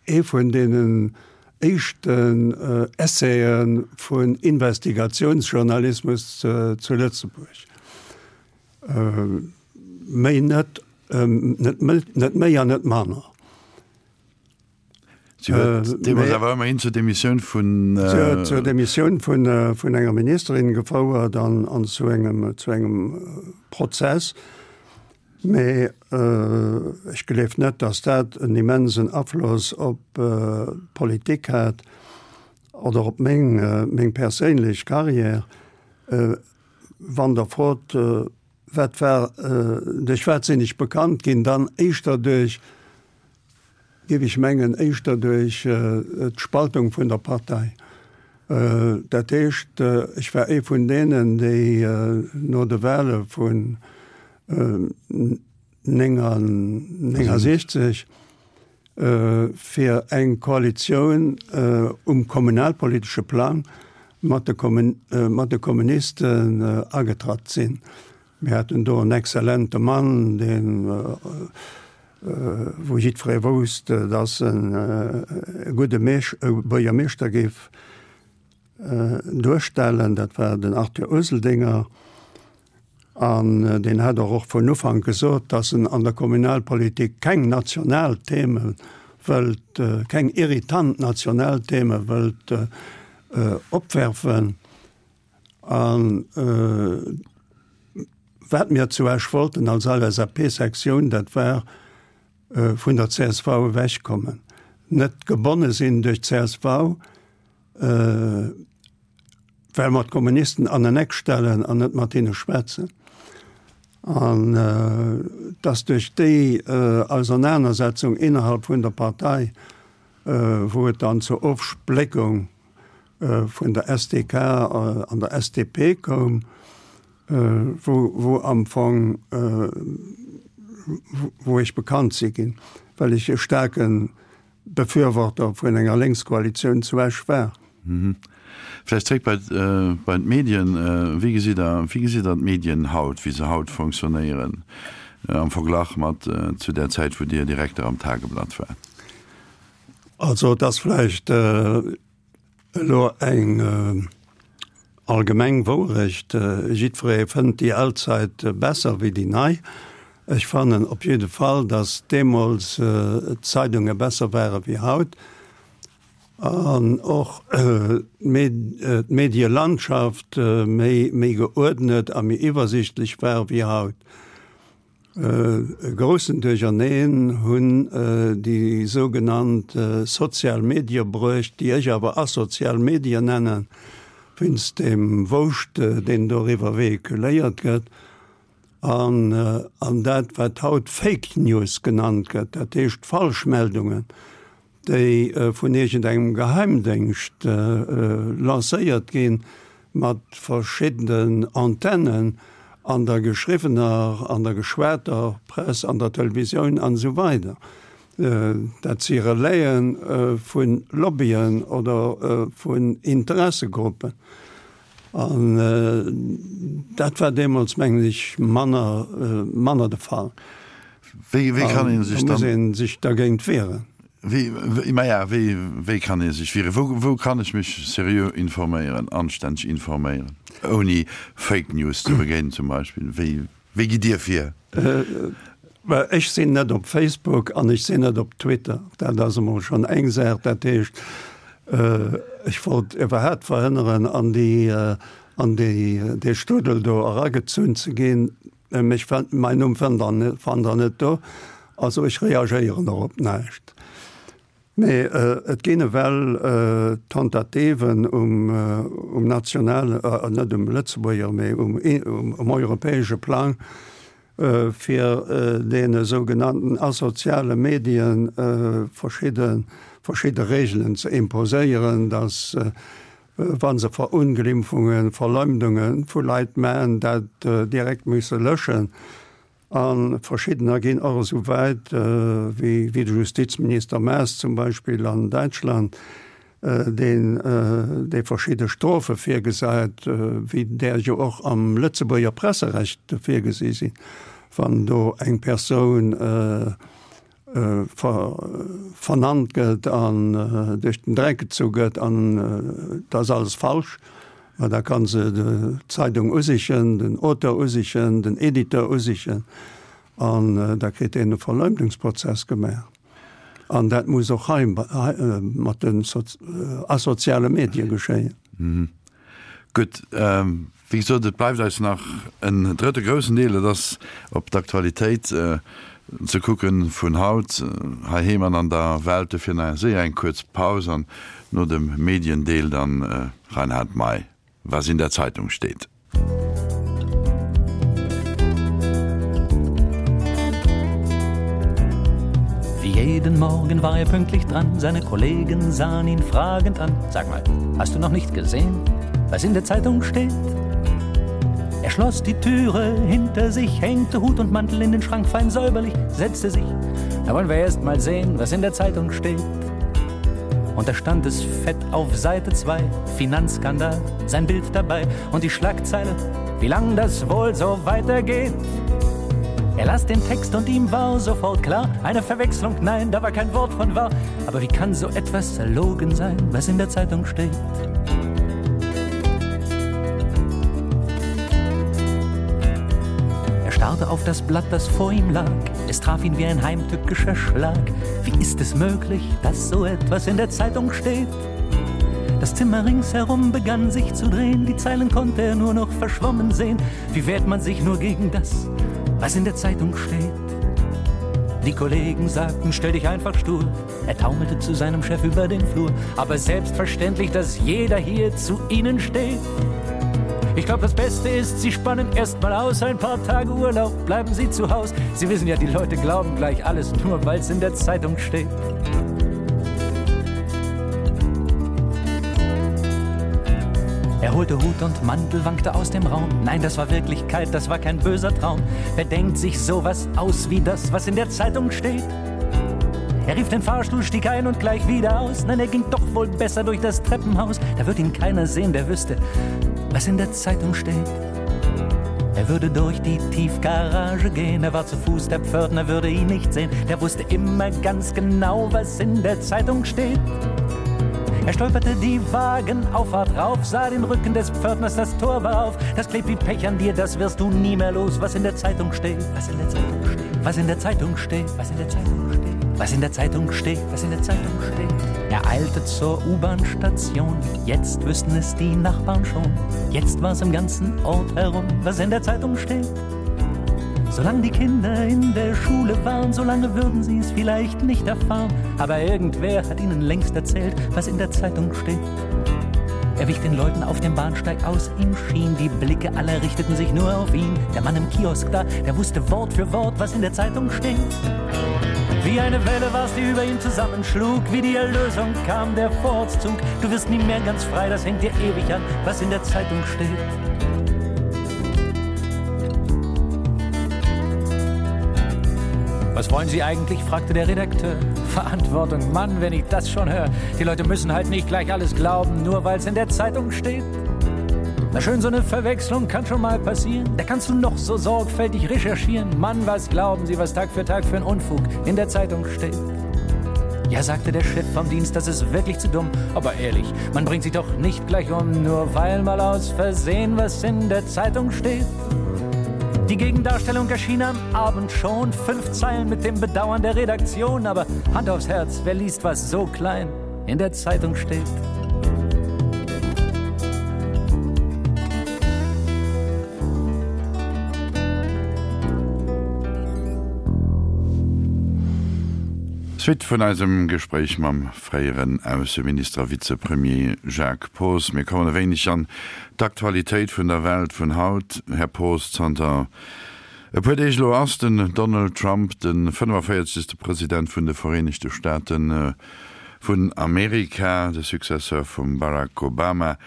ee vun deenen éischten Essaie vun Investigatiounsjournalismus zu Lëtzebuerg. Méi net, net méi an net manner. Si huet deemools awer ëmmerhin zur Demissioun vun. Si huet zur Demissioun vun, vun enger Ministerin gefouert an, an zu engem, zu engem Prozess. Mee ech gleef net, datt dat en immensen Afloss op d'Politik hat oder op meng, meng perséinlech Carrière. Wann Der frot, wat war, duerch wat sinn ech bekannt ginn, dann éischter duerch, géif ech mengen, éischter duerch d'Spaltung vun der Partei. Dat heescht, ech war ee vun deenen, déi no de Wahle vun 69 fir eng Koalitioun um kommunalpolitesche Plang mat de Kommunisten agetratt sinn. Mir haten do en exzellente Mann, deen, wou jiddweree wousst, dass en e gudde Buergermeeschter géif duerstellen, dat war den Arthur Useldinger. An deen hat och och vun Ufank gesot, dass en an der Kommunalpolitik keng national Theme wëllt, keng irritant national Theme wëllt opwerfen. A wat mir zu Esch wollten als LSAP-Sektioun, dat war vun der csv ewechkommen, net gebonne sinn duerch d'CSV, well mer d'Kommunisten an en Eck stellen an net mat hinne schwätzen. An dass duerch déi Ausernanersetzung innerhalb vun der Partei, wou et dann zur Ofspléckung vun der SDK an der SDP koum, wou wou am Fong wou ech bekannt si ginn, well ech e staarke Befürworter vun enger Lénkskoalitioun zu Esch war. Vläicht zréck bei bei d'Medien. Wéi gesitt Der wéi gesitt Der d'Medien haut, wéi se haut fonctionnéieren am Verglach mat zu där Zäit, wou Dir Direkter am Tageblatt waart? Also et ass vläicht elo eng allgemeng Wourecht, jiddweree fënnt déi al Zäit besser wéi déi nei. Ech fannen op jidde Fall, datt deemools d'Zeidunge besser ware wéi haut an och d'Medielandschaft méi geuerdnet a méi iwwersichtlech war wéi haut. E groussen Duercherneen hunn déi sougenannt sozial Medie bruecht, déi ech awer asozial Medien nennen. wéinst deem Wouscht, deen doriwwer vehiculéiert gëtt. An, an dat, wat haut Fake News genannt gëtt, dat heescht Falschmeldungen, déi vun iergendengem Geheimdéngscht lancéiert ginn, mat verschiddenen Antennen an der geschriwwener, an der geschwater Press, an der Televisioun an esou weider. Dat si Relaie vu Lobbyen oder vun Interessegruppen. An dat war deemools, mengen ech, manner, manner de Fall. Wéi, wéi kann ee sech dann. Da muss ee sech dergéint wieren. Wéi, maja, wéi, wéi kann ee sech wieren? Wou, wou kann ech mech seriö informéieren, anstänneg informéieren, ouni Fake News ze begéinen zum Beispill? Wéi, wéi gitt Dir vir? Ech sinn net op Facebook an ech sinn net op Twitter. Dat ass emol schonn eng Saach. Dat heescht, ech wollt iwwerhaapt verhënneren, an déi, an déi, dee Strudel do eragezunn ze ginn. Mech fënnt, mäin Numm fënnt Der, fannt Der net do. Also ech reagéieren och op näischt. Mee et ginn ewell Tentativen um, um nationale, net um Lëtzebuerger, mee um, um europäesche Plang, fir deene sougenannten asoziale Medien verschidde, verschidde Regeln ze imposéieren, dass, wa se Verunglimpfungen, Verleumdunge vu Leit maachen, dat direkt musse löschen. A verschiddener ginn och esou wäit, wéi de Justizminister Maas zum Beispill an Däitschland, deen dee verschidde Strofe virgesäit, wéi där jo och am Lëtzebuerger Presserecht virgesi sinn, wann do eng Persoun vernannt gëtt an duerch den Dreck gezu gëtt an et ass alles falsch, ma da ka se d'Zeidung usichen, den Auteur usichen, den Editeur usichen an da kritt deen e Verleumdungsprozess gemaach. An dat muss och hei mat den asoziale Medie geschéien. Gutt, wéi gesot, et bleift eis nach en drëtte groussen Deel, dat ass op d'Aktualitéit ze kucken vun haut, heiheem an an der Welt. Dofir nach séier eng kuerz Paus an no dem Mediendeel dann Reinhard Mey, Was in der Zeitung steht. Wie jeden Morgen war er pünktlich dran, seine Kollegen sahen ihn fragend an. Sag mal, hast du noch nicht gesehen, was in der Zeitung steht? Er schloss die Türe hinter sich, hängte Hut und Mantel in den Schrank fein säuberlich, setzte sich. Da wollen wir erst mal sehen, was in der Zeitung steht. Und da stand es fett auf Seite 2, Finanzskandal, sein Bild dabei und die Schlagzeile, wie lang das wohl so weitergeht. Er las den Text und ihm war sofort klar, eine Verwechslung, nein, da war kein Wort von wahr. Aber wie kann so etwas erlogen sein, was in der Zeitung steht? Er starrte auf das Blatt, das vor ihm lag. Es traf ihn wie ein heimtückischer Schlag. Wie ist es möglich, dass so etwas in der Zeitung steht? Das Zimmer ringsherum begann sich zu drehen, die Zeilen konnte er nur noch verschwommen sehen. Wie wehrt man sich nur gegen das, was in der Zeitung steht? Die Kollegen sagten, stell dich einfach stur. Er taumelte zu seinem Chef über den Flur. Aber selbstverständlich, dass jeder hier zu ihnen steht. Ich glaube, das Beste ist, Sie spannen erst mal aus ein paar Tage Urlaub, bleiben Sie zu Haus. Sie wissen ja, die Leute glauben gleich alles, nur weil es in der Zeitung steht. Er holte Hut und Mantel, wankte aus dem Raum. Nein, das war Wirklichkeit, das war kein böser Traum. Wer denkt sich sowas aus wie das, was in der Zeitung steht? Er rief den Fahrstuhl, stieg ein und gleich wieder aus. Nein, er ging doch wohl besser durch das Treppenhaus. Da wird ihn keiner sehen, der wüsste, was in der Zeitung steht. Er würde durch die Tiefgarage gehen, er war zu Fuß, der Pförtner würde ihn nicht sehen. Der wusste immer ganz genau, was in der Zeitung steht. Er stolperte die Wagenauffahrt rauf, sah den Rücken des Pförtners, das Tor war auf. Das klebt wie Pech an dir, das wirst du nie mehr los, was in der Zeitung steht, was in der Zeitung steht, was in der Zeitung steht, was in der Zeitung steht, was in der Zeitung steht, was in der Zeitung steht. Er eilte zur U-Bahn-Station, jetzt wüssten es die Nachbarn schon. Jetzt war es im ganzen Ort herum, was in der Zeitung steht. Solange die Kinder in der Schule waren, solange würden sie es vielleicht nicht erfahren. Aber irgendwer hat ihnen längst erzählt, was in der Zeitung steht. Er wich den Leuten auf dem Bahnsteig aus, ihm schien, die Blicke aller richteten sich nur auf ihn. Der Mann im Kiosk da, der wusste Wort für Wort, was in der Zeitung steht. Wie eine Welle war's, die über ihm zusammenschlug, wie die Erlösung kam der Vorzug. Du wirst nie mehr ganz frei, das hängt dir ewig an, was in der Zeitung steht. Was wollen Sie eigentlich? fragte der Redakteur. Verantwortung, Mann, wenn ich das schon höre. Die Leute müssen halt nicht gleich alles glauben, nur weil's in der Zeitung steht. Na schön, so eine Verwechslung kann schon mal passieren. Da kannst du noch so sorgfältig recherchieren. Mann, was glauben Sie, was Tag für Tag für ein Unfug in der Zeitung steht? Ja, sagte der Chef vom Dienst, das ist wirklich zu dumm. Aber ehrlich, man bringt sich doch nicht gleich um, nur weil mal aus Versehen was in der Zeitung steht. Die Gegendarstellung erschien am Abend schon, fünf Zeilen mit dem Bedauern der Redaktion, aber Hand aufs Herz, wer liest was so klein in der Zeitung steht? Suite vun eisem Gespréich mam fréieren Ausseminister a Vizepremier Jacques Poos. Mir kommen e wéineg an d'Aktualitéit vun der Welt vun haut. Här Poos, zanter e puer Deeg elo ass den Donald Trump de 45. President vun de Vereenegte Staaten vun Amerika, de Successeur vum Barack Obama.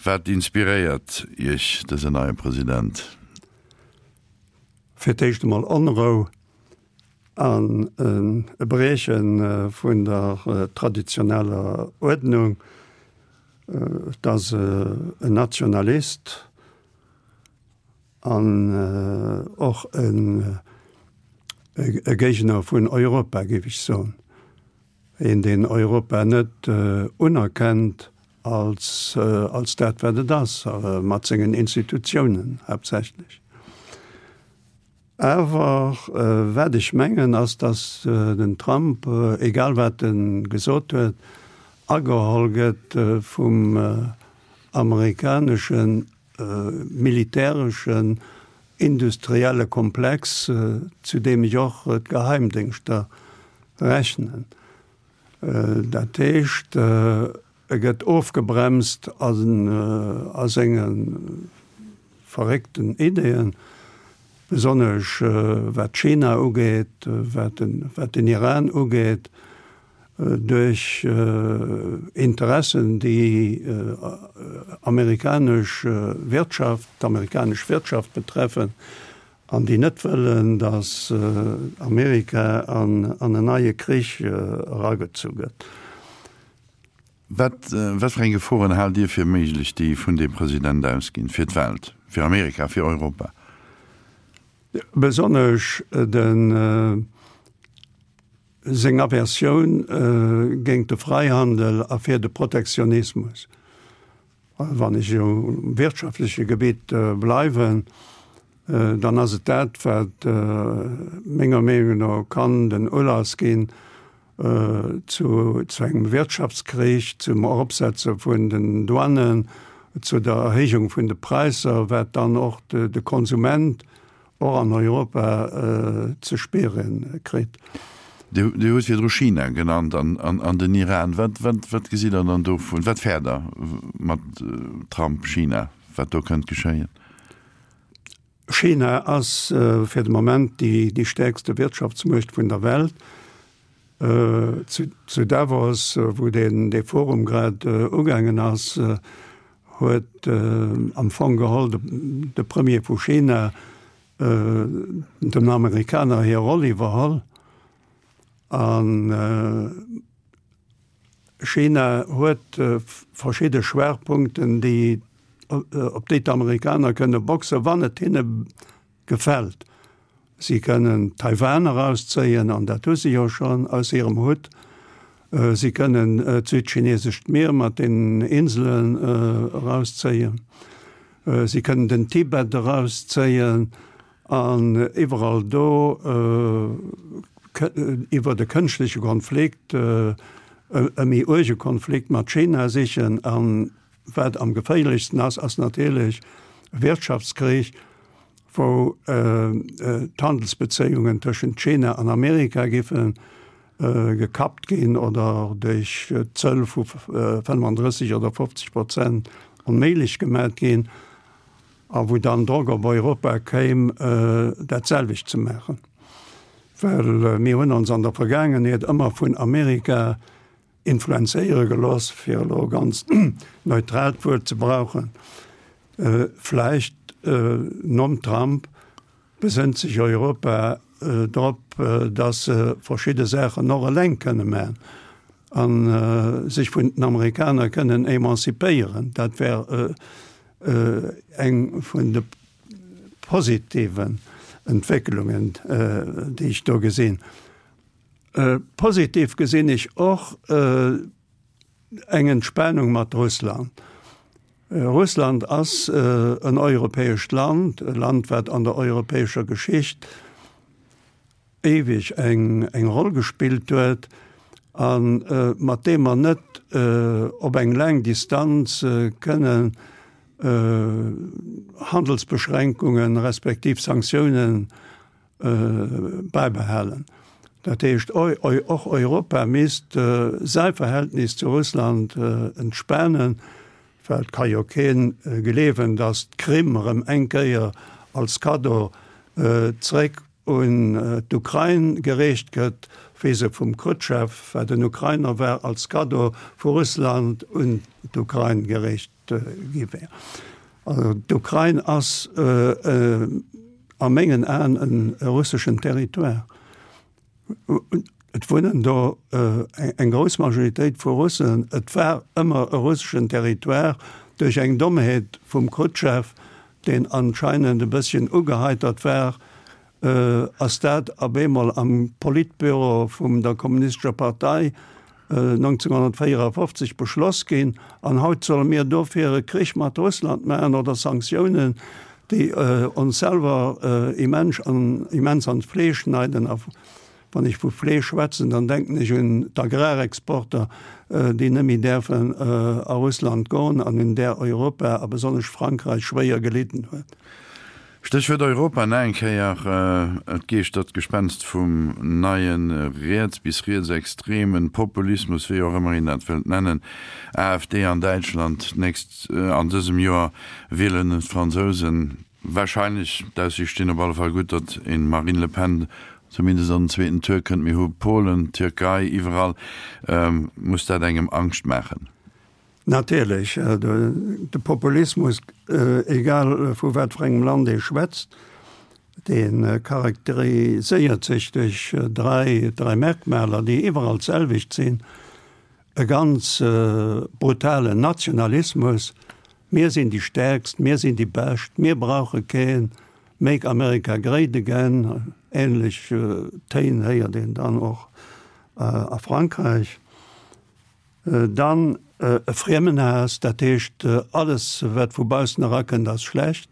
Wat inspiréiert Iech dësen neie President? Fir d'éischt emol Onrou an e Brieche vun der traditioneller Uerdnung. Et ass en Nationalist an och e Géigner vun Europa, géif ech soen. Een, deen Europa net unerkennt als dat, wat et ass, mat sengen Institutiounen haaptsächlech. Awer wat ech mengen ass, datt den Trump, egal wat e gesot huet, ageholl gëtt vum amerikanesche militäreschen industrielle Komplex, zu deem ech och d'Geheimdéngschter rechnen. Dat heescht, e gëtt ofgebremst a senge verréckten Ideeën, besonnesch wat China ugeet, wat den Iran ugeet, duerch Interessen, déi amerikanesch Wirtschaft, d'amerikanesch Wirtschaft betreffen an déi net wëllen, datt Amerika an en neie Krich eragezu gëtt. Wat, wat fir eng Geforen haalt Dir fir méiglech, déi vun deem President ausginn, fir d'Welt, fir Amerika, fir Europa? Besonnesch de seng Aversioun géint de Freihandel a fir de Protektionismus. Wann ech um wirtschaftleche Gebitt bleiwen, dann ass et dat, wat menger Meenung no kann den Ulass ginn zu engem Wirtschaftskrich, zum Eropsetze vun den Douanen, zu der Erhéijung vun de Präisser, wat dann och de Konsument och an Europa ze spiere kritt. Dir hutt virdru China genannt an den Iran. Wat gesitt Der dann dovun? Wat fäert Der mat Trump, China, wat do kënnt geschéien? China ass fir de Moment déi stäerkste Wirtschaftsmuecht vun der Welt. Zu Davos, wou dee Forum grad ugaangen ass, huet am Fong geholl de Premier vu China den Amerikaner hir Roll iwwerholl. A China huet verschidde Schwaachpunkten, déi, op déi d'Amerikaner kënne boxen, wann et hinne gefält. Si kënnen Taiwan erauszéien, an dat hu si jo schonn aus hirem Hutt. Si kënnen d'Südchinesescht Mier mat den Inselen erauszéien. Si kënnen den Tibet erauszéien an iwwerall do iwwer e kënschtleche Konflikt, e méi uerge Konflikt mat China sichen. An wat am geféierlechsten ass, ass natierlech e Wirtschaftskrich, wou d'Handelsbezéiungen tëschent China an Amerika giffen. gekappt ginn oder duerch Zöll vu 35 oder 50 Prozent onméiglech gemat ginn a wou dann Drock op Europa kéim, dat selwecht ze maachen. Well mir hunn ons an der Vergaangenheet ëmmer vun Amerika influenzéiere gelooss, fir elo e ganz neutraalt Wuert ze brauchen, vläicht nom Trump besënnt sech Europa drop, datt se verschidde Saachen och eleng kënne maachen a sech vun den Amerikaner kënnen emancipéieren. Dat wär eng vun de positiven Entwécklungen, déi ech do gesinn. Positiv gesinn ech och eng Entspanung mat Russland. Russland ass en europäescht Land, e Land, wat an der europäescher Geschicht éiweg eng eng Roll gespillt huet a mat deem mer net op eng laang Distanz kënnen Handelsbeschränkungen respektiv Sanktiounen bäibehalen. Dat heescht, och Europa misst säi Verhältnis zu Russland entspanen, well et ka jo kee gleewen, datt d'Krim erëm eng Kéier als Kaddo zréck un d'Ukrain gereecht gëtt, wéi se vum Chrutschew, wat en Ukrainer war, als Kaddo vu Russland un d'Ukrain gereecht gi wär. Also d'Ukrain ass a mengen Aen e russeschen Territoire. Et wunnen do eng grouss Majoritéit vu Russen. Et war ëmmer e russeschen Territoire duerch eng Dommheet vum Chrutschew, deen anscheinend e bësschen ugeheitert war, ass dat op eemol am Politbüro vum der Kommunistescher Partei 1954 beschloss ginn. An haut solle mir dofir e Krich mat Russland maachen oder Sanktiounen, déi ons selwer immens an immens an d'Fleesch schneiden. A wann ech vu Fleesch schwätzen, dann denken ech un d'Agrarexporter, déi net méi däerfen a Russland goen an un där Europa a besonnesch Frankräich schwéier gelidden huet. Stéchwuert Europa nach eng Kéier, Et geeschtert d'Gespenst vum neie riets bis rietsextremen Populismus, wéi och ëmmer een dat wëllt nennen, AfD an Däitschland, d'nächst an dësem Joer wielen d'Fransousen warscheinlech, d'Aussiichte stinn op alle Fall gutt, datt een Marine Le Pen zumindest an den zweeten Tour kënnt. Mir hu Polen, Tierkei, iwwerall muss dat engem Angscht maachen. Natierlech, de Populismus, egal vu wat fir engem Land ee schwätzt, dee charakteriséiert sech duerch dräi Merkmaler, déi iwwerall d'selwecht sinn, e ganz brutalen Nationalismus, mir sinn déi Stäerkst, mir sinn déi Bescht, mir brauche keen, Make America Great Again, änlech Téin héiert een dann och a Frankräich. Dann e Friemenhaass, dat heescht alles wat vu baussen erakënnt ass schlecht,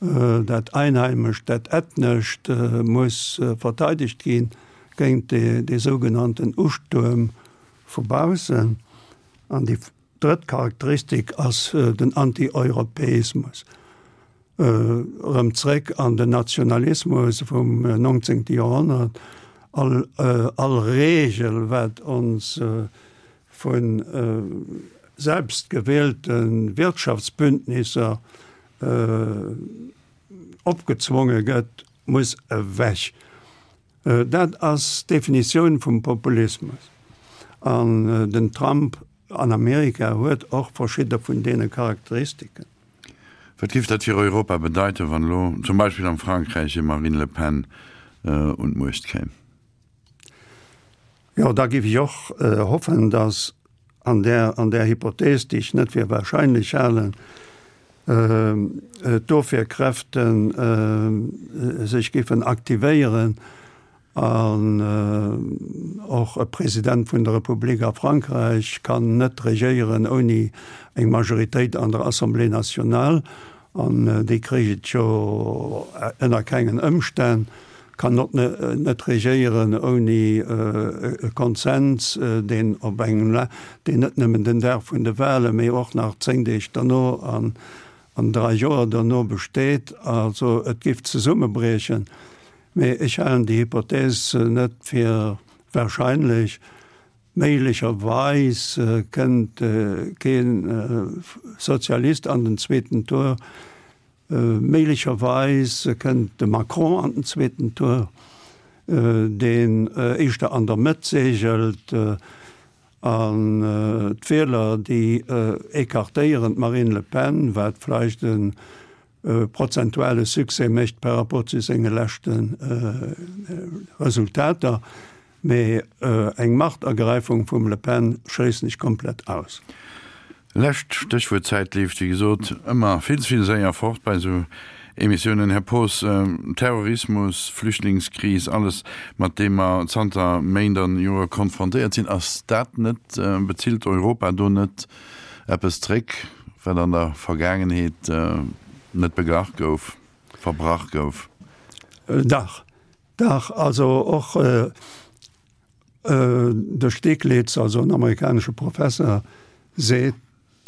dat Einheimescht, dat Ethnescht muss verteidegt gi géint dee sougenannten Ustuerm vu baussen. An déi drëtt Charakteristik ass den Antieuropäismus. Erëm zréck an den Nationalismus vum 19. Joerhonnert, all, all Regel, wat ons vu selbstgewielte Wirtschaftsbündnisser opgezwonge gëtt, muss ewech. Dat ass d'Definitioun vum Populismus. An den Trump an Amerika huet och verschidde vun deene Charakteristiken. Wat géif dat fir Europa bedeiten, wann elo zum Beispill am Frankräich e Marine Le Pen un d'Muecht kéim? Jo, da géif ech och hoffen, datt an där, an där Hypothees, déi ech net fir wahrscheinlech halen, d'Ofwierkräfte sech géifen aktivéieren an och e President vun der Republik a Frankräich kann net regéieren ouni eng Majoritéit an der Assemblée nationale. An déi kréich et jo ënner kengen Ëmstänn, kann och net regéieren ouni e Konsens, deen op engem, deen net nëmmen den Dag vun de Wahlen, mee och nach 10 Deeg derno an 3 Joer derno besteet. Also et géif zesummebriechen. Mee ech halen déi Hypothèse net fir. Wahrscheinlech. Méiglecherweis kënnt kee Sozialist an den zweeten Tour. Méiglecherweis kënnt de Macron an den zweeten Tour, deen éischter an der Mëtt segelt. An d'Wieler, déi écartéieren d'Marine Le Pen, wat vläicht e prozentuale Succès mécht par rapport zu senge leschte Resultater. Mee eng Machtergräifung vum Le Pen schléissen ech komplett aus. Lescht Stéchwuert, D'Zäit leeft wéi gesot ëmmer vill ze vill séier fort bei esou Emissiounen. Här Poos, Terrorismus, Flüchtlingskris, alles mat deem mer zanter Méint an Jore konfrontéiert sinn, ass dat net, bezilt Europa do net eppes zréck, wat an der Vergaangenheet net beglach gouf, verbrach gouf? Dach, Dach, also och de Stiglitz, also en amerikanesche Professer, seet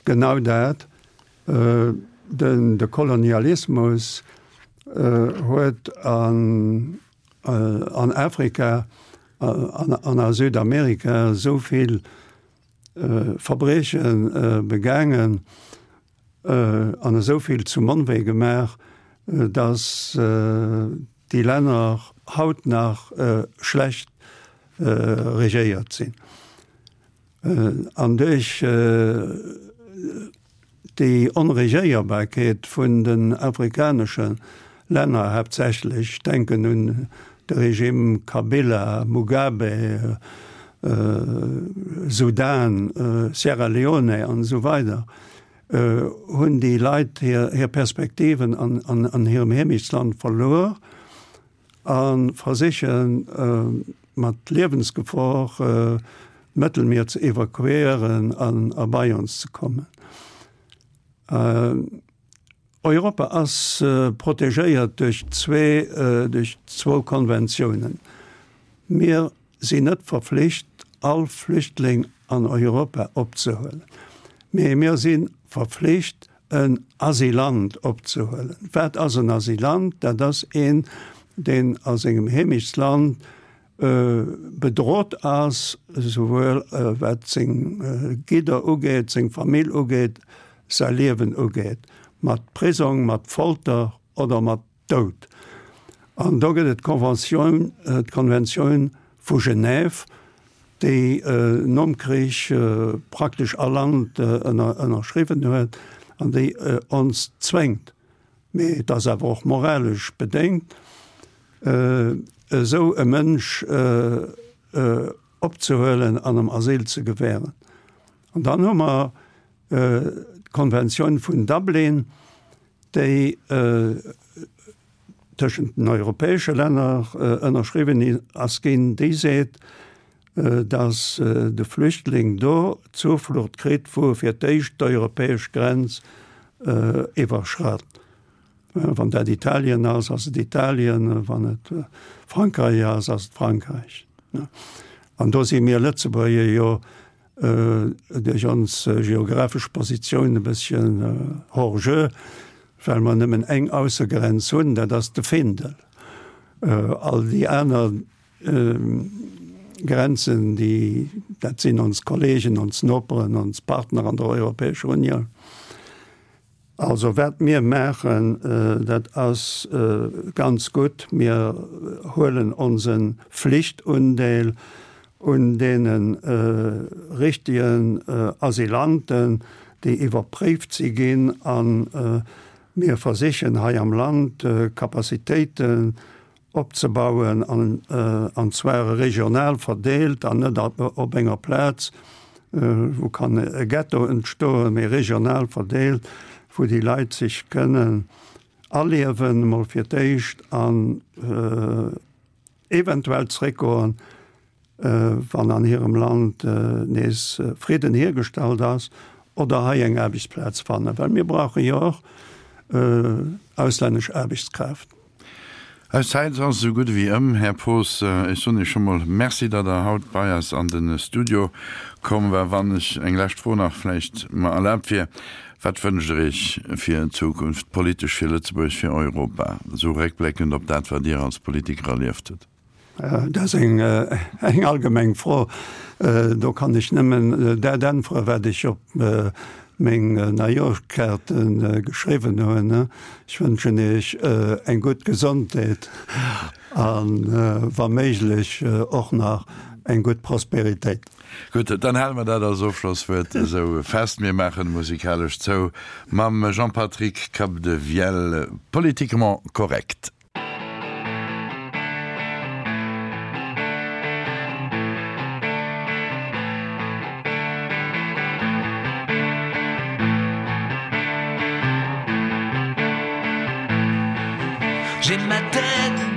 genau dat, den de Kolonialismus huet an an Afrika an a Südamerika esou vill Verbrieche begaangen, an esou vill zum Onwee gemaach, datt déi Länner haut nach schlecht regéiert sinn. An duerch déi Onregéierbarkeet vun den afrikanesche Länner haaptsächlech, ech denken un de Regime Kabila, Mugabe, Sudan, Sierra Leone an esou weider, hunn déi Leit hir Perspektiven an hirem Heemechtsland verluer a versiche mat Liewensgefor d'Mëttelmier ze evakuéieren an a bei ons ze kommen. Europa ass protegéiert duerch zwee, duerch zwou Konventiounen. Mir sinn net verflicht, all Flüchtling an Europa opzehuelen, mee mir si verflicht, en Asylant opzehuelen. Wat ass en Asylant? Dat ass een, deen a sengem Heemechtsland bedrot ass, esouwuel wat seng Gidder ugeet, seng Famill ugeet, säi Liewen ugeet, mat Prisong, mat Folter oder mat Doud. An do gëtt et d'Conventioun, d'Konventioun vu Genève, déi nom Krich praktesch all Land ënnerschriwwen huet an déi ons zwéngt, mee et ass awer och moralesch bedéngt, esou e Mënsch opzehuelen an em Asyl ze gewähren. An dann hu mer d'Konventioun vun Dublin, déi tëschent den europäesche Länner ënnerschriwwen ass ginn, déi seet, datt de Flüchtling do Zuflucht kritt, wou e fir d'éischt d'europäesch Grenz iwwerschratt. Wann dat Italien ass, ass et Italien, wann et Frankräich ass, ass et Frankräich. An do si mir Lëtzebuerger jo duerch ons geographesch Positioun e bësschen hors jeu, well mer nëmmen eng Aussegrenz hunn, dat ass de Findel. All déi aner Grenzen, déi, dat sinn ons Kollegen, ons Noperen, ons Partner an der Europäescher Unioun. Also wat mir maachen, dat ass ganz gutt. Mir huelen onse Flichtundeel un deene richtigen Asylanten, déi iwwerpréift si ginn, a mir versichen hei am Land Capacitéiten opzebauen, an zwar regional verdeelt an net op enger Plaz, wou kann e Ghetto entstoen, mee regional verdeelt, wou déi Leit sech kënnen aliewen, emol fir d'éischt, an eventuell zréckgoen, wann an hirem Land nees Fridden hiergestallt ass, oder hei eng Aarbechtsplaz fannen, well mir brauche jo och auslännesch Aarbechtskraaft. Eis Zäit ass esou gutt ewéi ëm. Här Poos, ech soen Iech scho mol Merci, datt Der haut bei eis an de Studio komm war. Wann ech eng lescht Fro nach vläicht mer erlaabt wier, Wat wënscht Der Iech fir d'Zukunft, politesch fir Lëtzebuerg, fir Europa, esou réckbléckend op dat, wat Dir als Politiker erlieft hutt? Dat ass eng allgemeng Fro. Do kann ech nëmmen dat äntweren, wat ech op meng Neijoerschkaarte geschriwwen hunn. Ech wënschen Iech eng gutt Gesondheet a wa méiglech och nach eng gutt Prosperitéit. Gutt, dann hale mer dat als Ofschlosswuert esou fest. Mir maachen musikalesch zou mam Jean-Patrick Capdevielle, Politiquement correct. J'ai ma tête.